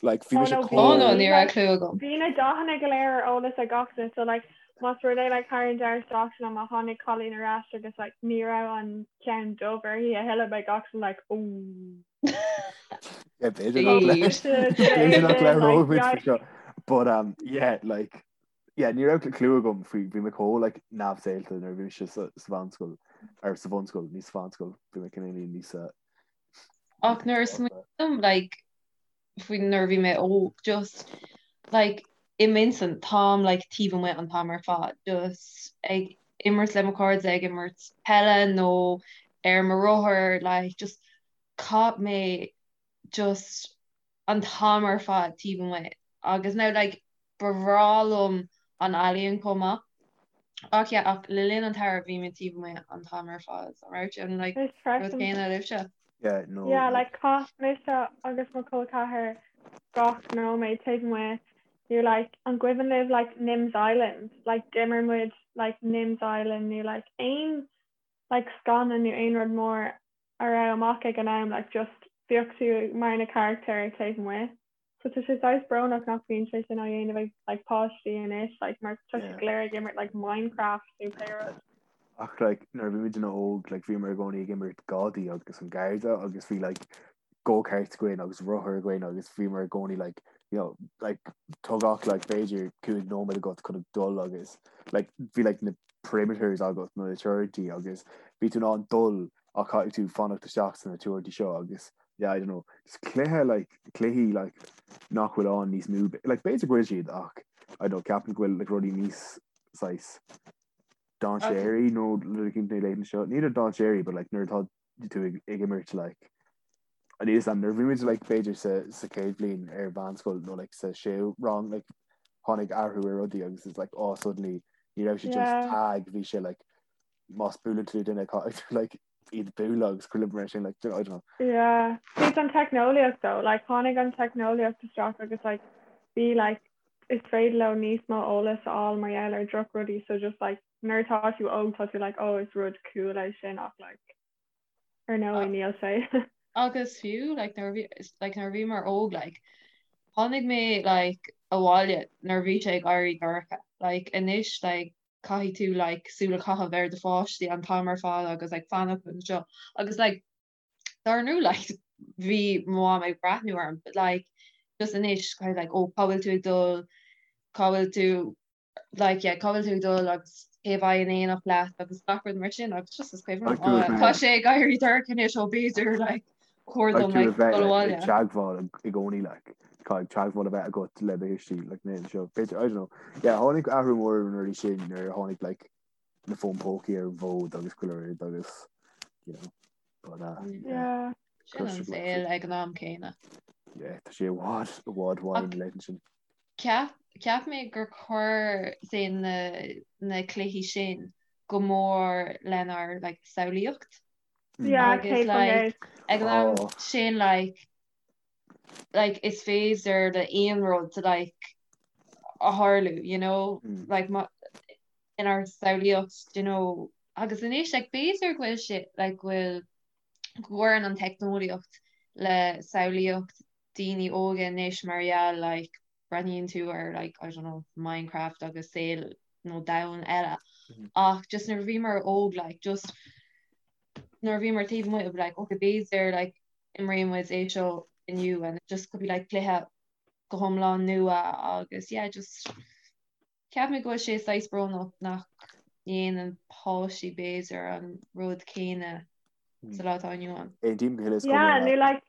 Like bhí mise chomh. Oh no, ní raibh clue agam. Bhí na dathanna go léir ar eolas ag gach duine, so like más rud é like thar an deireadh seachtaine má tháinig cailín ar ais agus like ní raibh an ceann dubh uirthi a thuilleadh beidh gach duine like ooh. Yeah, b'fhéidir nach le- b'fhéidir nach labhróidh muid faoi seo. But um, yeah, like, yeah, ní raibh clue agam faoi bhí mé chomh like neamhshaolta nuair a bhí mise sa sa mheánscoil ar sa bhunscoil, ní sa mheánscoil, bhí mé cineál níos uh, Ach nuair a smaoiním like faoi nuair a bhí mé óg just like i m'intinn táim like taobh amuigh an t-am ar fad just ag imirt le mo chairde ag imirt peile nó ar mo rothar like just chaith mé just an t-am ar fad taobh amuigh agus now like ba bhreá liom an ealaíon chomh maith ach yeah ach le linn an tsamhraidh bhí mé taobh amuigh an t-am ar fad an raibh sé an like Is rud freisin. céanna libhse? Yeah, no. Yeah, like chaith mise agus mo chol ceathar gach nóiméad taobh amuigh nó like an gcuimhin libh like Nim's Island like d'imir muid like Nim's Island nó like aon like scannán nó aon rud mór a raibh amach ag an am like just bheadh tú mar na carachtair taobh amuigh. So tá sé saghas brónach nach mbíonn sé sin á dhéanamh ag like páistí anois like mar tá siad go léir ag imirt like Minecraft nó pé rud. Ach like nuair a bhí muid óg like bhíomar i gcónaí ag imirt gadaí agus an garda agus bhí like go-karts againn agus rothair againn agus bhíomar i gcónaí like you know like tógadh like b'fhéidir 5 nóiméad agat chun dul agus like bhí like na perimeters agat nó na teorainntí agus bhí tú in ann dul ach caithfidh tú fanacht isteach sna teorainntí seo agus yeah I don't know just cluiche like cluichí like nach bhfuil ann níos mó like b'fhéidir go bhfuil siad ach I don't know ceapaim go bhfuil like rudaí níos saghas dainséaraí nó rud éicint na laethanta seo ní le dainséaraí but like nuair atá tú ag ag imirt like an is an nuair bhí muid like b'fhéidir sa sa chéad bhliain ar mheánscoil nó like sa séú rang like tháinig athrú ar rudaí agus it's like oh suddenly ní raibh sé just tag bhí sé like más buaileann tú duine caithfidh tú like iad a bhualadh agus chuile mar sin like I don't know. Yeah. It's an teicneolaíocht though, like tháinig an teicneolaíocht isteach agus like bhí like is féidir leo níos mó eolas a fháil mar gheall ar droch rudaí so just like nuair atá tú óg tá tú like oh is rud cool é sin ach like ar ndóigh níl sé. Agus fiú like nuair a bhí like nuair a bhíomar óg like tháinig mé like abhaile nuair a bhí sé ag éirí dorcha like anois like caithfidh tú like súil a chaitheamh ar do pháistí an t-am ar fad agus like fanacht anseo agus like dar ndóigh like bhí mo mham ag breathnú orm but like just anois kind of like oh cá bhfuil tú ag dul cá bhfuil tú like yeah cá bhfuil tú ag dul agus cé a bheidh in éineacht leat agus gach rud mar sin agus just is cuimhin liom oh tá sé ag éirí dorcha anois ó b'fhéidir like chóir dom like dul abhaile. Ag teagmháil i gcónaí like caithfidh teagmháil a bheith agat le do thuistí like na seo b'fhéidir I don't know yeah tháinig athrú mór ar na rudaí sin nuair a tháinig like na fóin pócaí ar an bhfód agus chuile rud agus you know but uh, yeah. Sin an saol ag an am céanna. Yeah, tá sé i bhfad i bhfad uainn leis sin. Ceap cheap mé gur chuir say na na cluichí sin go mór lenár like samhlaíocht. Yeah, Agus like ag an am Oh. sin like like is féidir le aon rud like a tharlú you know Mm. like ma inár samhlaíocht you know agus anois like b'fhéidir go bhfuil sé like go bhfuil go gcuireann an teicneolaíocht le samhlaíocht daoine óga anois mar gheall like breathnaíonn tú ar like I don't know Minecraft agus saol nó domhan eile Mm. ach just nuair a bhíomar óg like just nuair a bhíomar taobh amuigh like okay b'fhéidir like imreoidh muid é seo inniu and it just could be like cluiche go hiomlán nua agus yeah just cheap mé go bhfuil sé saghas brónach nach ndéanann páistí b'fhéidir an rud céanna sa lá atá inniu ann. Aontaím go huile is go Yeah, hiomlán nó leat. like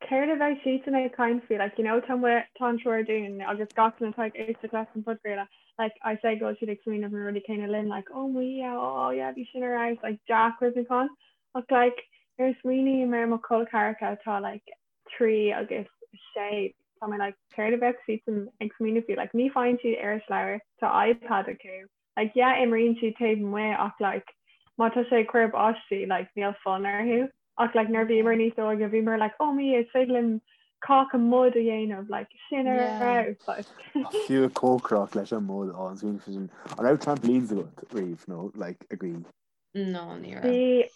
céard a bheidh siadsan ag caint faoi like you know tá mu- tá an triúr dúinn agus gach duine atá ag éisteacht leis an podchraoladh like I say go bhfuil siad ag smaoineamh na rudaí céanna linn like oh my yeah oh yeah bhí sin ar fheabhas like dea-chuimhneachán ach like nuair a smaoiním ar mo chol ceathracha atá like 3 agus 6 tá mé like céard a bheadh siadsan ag smaoineamh faoi like ní faigheann siad irisleabhar tá iPad acu like yeah imríonn siad taobh amuigh ach like má tá sé ag cur báistí like níl fonn orthu ach like nuair bhíomar níos óige bhíomar like oh my is féidir linn. Cáca mud a dhéanamh like sin ar fheabhas like. Fiú ag cócaireacht leis an mud á an smaoineamh sin. An raibh trampolines agat riamh nó like agaibh? No, ní raibh. Bhí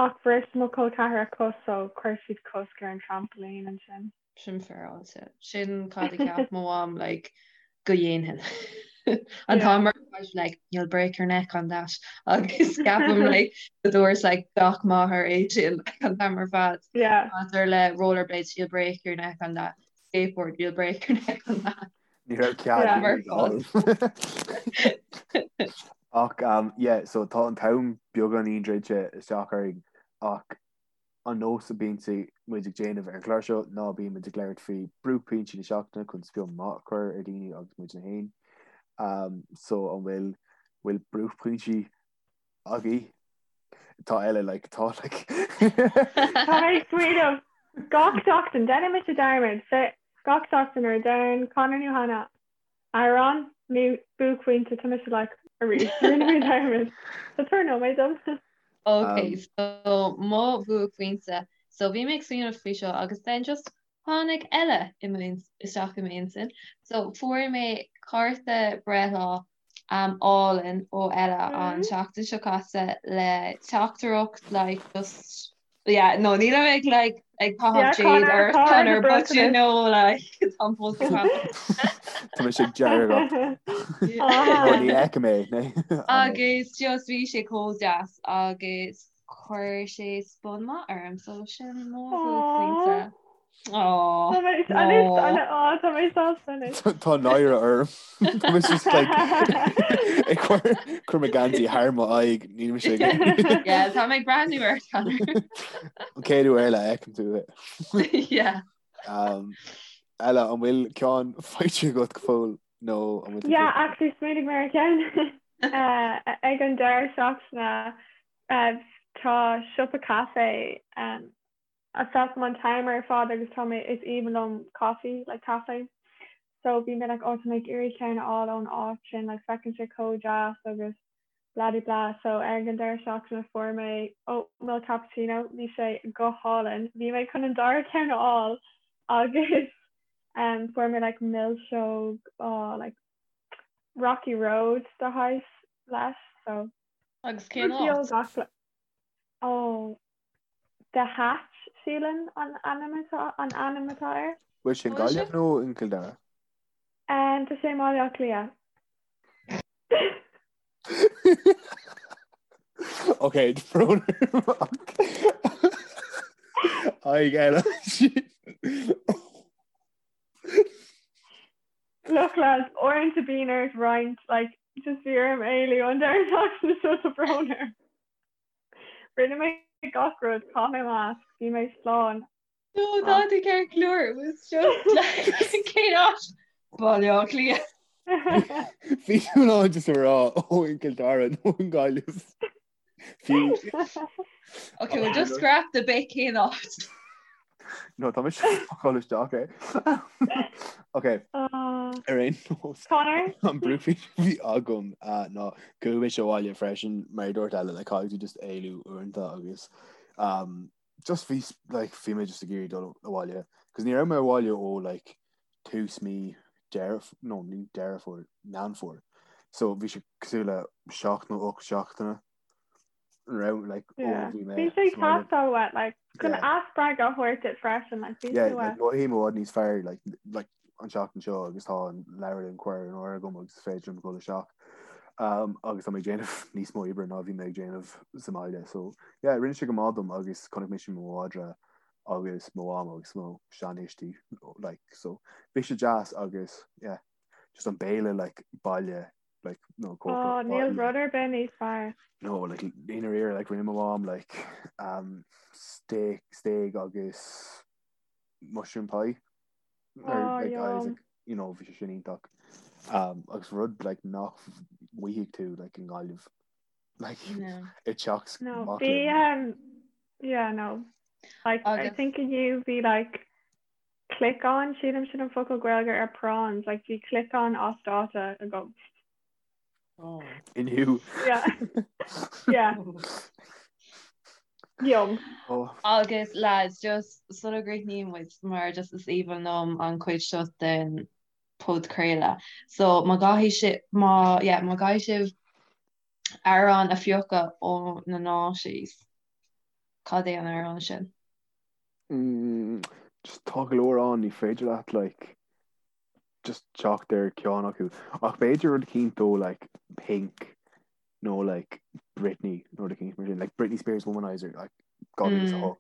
ach bhris mo chol ceathar a cos so chuir siad cosc ar an trampoline ansin. Sin féaráilte. Sin cad a cheap mo mham like go dhéanfainn. An t-am ar fad like you'll break your neck on that agus ceapaim like go dúirt like gach máthair é sin like an t-am ar fad. Yeah. Maidir le rollerblades you'll break your neck on that skateboard you'll break your neck on that. Ní raibh cead Yeah. ag Ach um, yeah, so tá an t-am beagáinín druidte isteach orainn ach An nós a bíonn muid ag déanamh ar an chlár seo ná bíonn muid ag labhairt faoi buaicphointí na seachtaine chun spion maith a chur ar daoine agus muidne féin. So an bhfuil bhfuil buaicphointí agaibh? Tá Ella like tá like. Tá mé ag smaoineamh gach seachtain, déanann mise dearmad, gach seachtain nuair a deireann Conor nó Hannah Amhrán nó buaicphointe, tá mise like arís, rinne mé dearmad. So tabhair nóiméad dom. Ok, so mo bhuaicphointe. So bhí mé ag smaoineamh faoi seo agus then just tháinig Ella i isteach i m'intinn. So fuair mé cárta breithlá um, álainn ó Ella an tseachtain seo caite le teachtaireacht like just Yeah, no, níl mé ag like ag caitheamh jade ar Conor but you know like tá fós ag Tá mé ag dearg. Ní fheicim é né. Agus just bhí sé chomh deas agus chuir sé spun maith orm so sin mo bhuaicphointe. Tá mé sásta anois. Tá náire orm. Tá mé just like ag cur cur mo geansaí thar mo aghaidh níl mise ag Yeah, tá mé ag breathnú ar Conor. An chéad uair eile a fheicim tú é. Yeah. Um, Ella, an bhfuil ceann faighte agat go fóill nó an bhfuil tú Yeah, actually smaoinigh mé ar cheann ag an deireadh seachtaine tá siopa caife um, a feicim an t-am ar fad agus tá mé is aoibhinn liom coffee like caife so bhí mé like oh tá mé ag iarraidh ceann a fháil ón áit sin like feiceann sé chomh deas agus blah de blah so ar an deireadh seachtaine fuair mé oat milk cappuccino bhí sé go hálainn bhí mé chun an dara ceann a fháil agus um, fuair mé like milseog oh, like Rocky Road de shaghas leis so Agus cén áit? Oh The Hatch, sílim an ainm atá an ainm atá air. Bhfuil sé i nGaillimh nó in Cill Dara? Tá sé i mBaile Átha Cliath. Ok, brón orm ach aghaidh eile. Look lads, uaireanta bíonn ort roinnt like just bhí orm éalú an deireadh seachtaine seo tá brón orm. Rinne mé gach rud, chaith mé masc, bhí mé slán. No, tá tú ceart go leor, it was just like cén áit? Baile Átha Cliath. Bhí tú in ann just a rá ó in Cill Dara nó in Gaillimh. Fiú. Okay, we'll just scrap the bit cén áit. No, tá mise ag dul isteach é. Ok, ar aon nós. Conor? An buaicphointe a bhí agam ná go raibh mise abhaile freisin mar a dúirt Ella, like caithfidh tú just éalú uaireanta agus um, just bhí like bhí mé just ag iarraidh dul abhaile cos ní raibh mé abhaile ó like tús mí Deireadh no ní Deireadh Fómhair, Meán Fómhair. So bhí sé cosúil le 7 nó 8 seachtaine raibh like ó bhí mé Bhí sé ag teastáil uait like chun athspreagadh a thabhairt duit freisin like bhí sé uait. Mothaím i bhfad níos fearr like like an seachtain seo agus tá an leabharlann curtha in áirithe agam agus is féidir liom dul isteach um, agus tá mé ag déanamh níos mó oibre ná bhí mé ag déanamh sa mbaile so yeah rinne sé go maith dom agus chonaic mise mo mhadra agus mo mham agus mo seanthuistí like so bhí sé deas agus yeah just an béile like baile like no Oh, níl rud ar bith níos fearr. No, like i ndáiríre like rinne mo mham like um steak steak agus mushroom pie. Or, Oh, like, I was yum. like, you know, bhí sé sin iontach. Um, agus rud like nach bhfaighidh tú like i nGaillimh like No. i dteach No, mac bhí léinn. um yeah, no. Like I Agus think inniu bhí like Cliocán, sílim sin an focal Gaeilge ar prawns, like bhí cliocán as dáta agam. Inniu. Yeah. Yeah. Yum. Oh. Agus lads, just sula gcríochnaíonn muid, mar just is aoibhinn liom an chuid seo den podchraoladh. So má gcaithfidh sibh, má, yeah, má gcaithfidh sibh amhrán a phiocadh ó na noughties, cad é an amhrán sin? Mm, just tá go leor ann, ní féidir leat like just teacht ar ceann acu. Ach b'fhéidir rud eicínt ó like Pink nó like Britney nó rud eicínt mar sin, like Britney Spears Womanizer like 2008.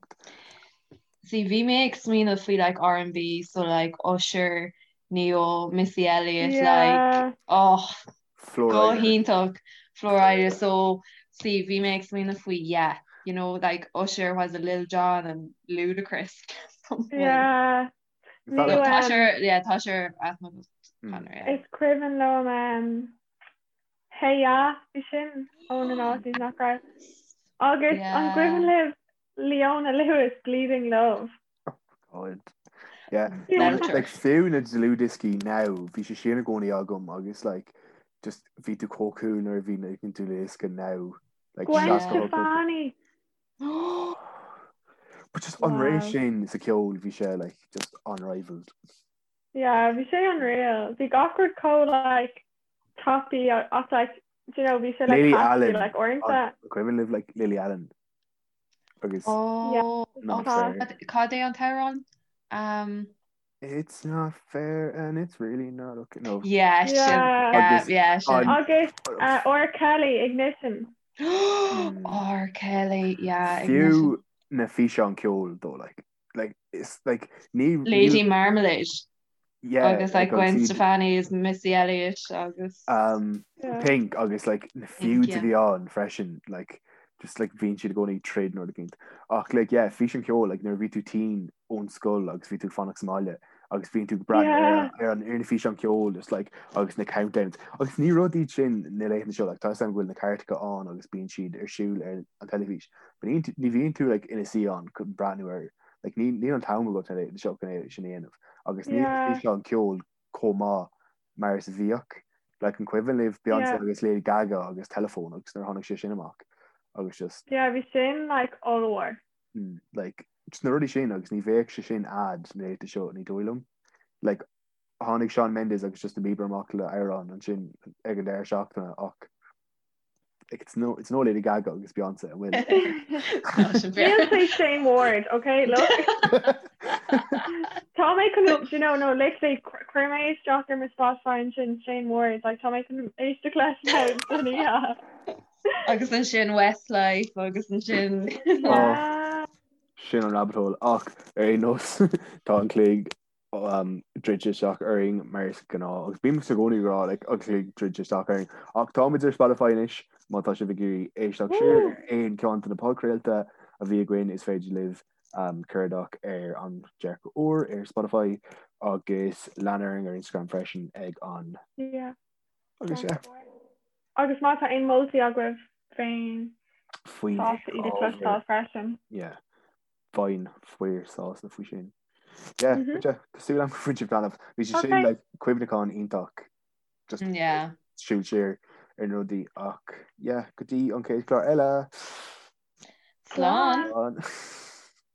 See, bhí mé ag smaoineamh faoi like R&B, so like Usher, Ne-Yo, Missy Elliott, like, Yeah. oh, Flo go Rida. hiontach, Flo Rida, so see, bhí mé ag smaoineamh faoi yeah, you know, like Usher was a Lil Jon and Ludacris. Something. Yeah. Is that Nó, like Tá um, sé ar, yeah, tá sé ar aithne agat, Mm. Conor, yeah. Is cuimhin liom um, Hey Ya, bhí sin ó na noughties nach raibh. Agus an Yeah. gcuimhin libh Leona Lewis, Bleeding Love. God. Yeah. No, Belter. like fiú na dlúthdhioscaí now, bhí sé sin i gcónaí agam agus like just bhí tú chomh cool nuair a bhí na dlúthdhiosca now. Like Gwen Yeah. 68. Stefani. But just an ré Wow. sin sa ceol bhí sé like just unrivaled. Yeah, bhí sé unreal. Bhí gach rud chomh like tapaidh ach like do you know bhí sé like Lily catchy Allen. like uaireanta. An cuimhin libh like Lily Allen agus Yeah. Oh, Not oh, fair. cad cad é an t-amhrán? Um, It's not fair and it's really not okay. No. yeah, sin, Yeah. yeah, Agus yeah, sin. an Agus uh, R. Kelly Ignition. Mm. R. Kelly, yeah, Ignition. fiú na físeáin ceoil though like like it's like ní Lady níl Marmalade yeah agus like like agus Gwen iad Stefani is Missy Elliott agus um Yeah. Pink agus like na Pink, feuds a yeah. bhí ann freisin like just like bhíonn siad i gcónaí troid nó rud eicínt ach like yeah físeán ceoil like nuair a bhí tú tinn ón scoil agus bhí tú ag fanacht sa mbaile agus bhíonn tú ag breathnú ar Yeah. ar an ar na físeáin ceoil just like agus na countdowns agus ní rud iad sin na laethanta seo like tá a fhios agam go bhfuil na cairteacha ann agus bíonn siad ar siúl ar an teilifís but ní ní bhíonn tú like ina suí ann chun breathnú ar like ní níl an t-am agat na laethanta seo chun é sin a dhéanamh agus níl Yeah. físeán ceoil chomh maith mar is a bhíodh. Like an cuimhin libh Beyonce Yeah. agus Lady Gaga agus Telephone agus nuair a tháinig sé sin amach agus just Yeah, bhí sin like ollmhór. mm, like just na rudaí sin agus ní bheadh sé sin a'd na laethanta seo ní dóigh liom. Like tháinig Shawn Mendes agus Justin Bieber amach le amhrán ansin ag an deireadh seachtaine ach like it's no it's no Lady Gaga agus Beyonce an bhfuil? Tá sin Níl fair. sé Shane Ward, okay? Look. Tá mé chun, do you know, no, literally, chuir mé isteach ar mo Spotify ansin Shane Ward, like tá mé chun éisteacht leis now don oíche. Agus ansin Westlife agus ansin Oh, Yeah. sin an rabbit hole ach ar aon nós tá an cloig druidte isteach orainn mar is gnáth agus bímse i gcónaí ag rá like an cloig druidte isteach orainn ach táimid ar Spotify anois má tá sibh ag iarraidh éisteacht siar ar aon ceann de na podchraolta a bhí againn is féidir libh um, cuardach ar an Dearcadh Úr ar Spotify agus lean orainn ar Instagram freisin ag an Yeah. agus yeah. Agus má tá aon moltaí agaibh féin faoin sásta iad a chloisteáil freisin. Yeah. Bheinn fíor sásta faoi sin. Yeah, mm -hmm. yeah, tá súil agam gur bhain sibh taitneamh. Bhí sé sin like, cuimhneachán iontach just yeah. siúl siar ar na rudaí ach yeah, go dtí an chéad chlár eile. Slán. Slán.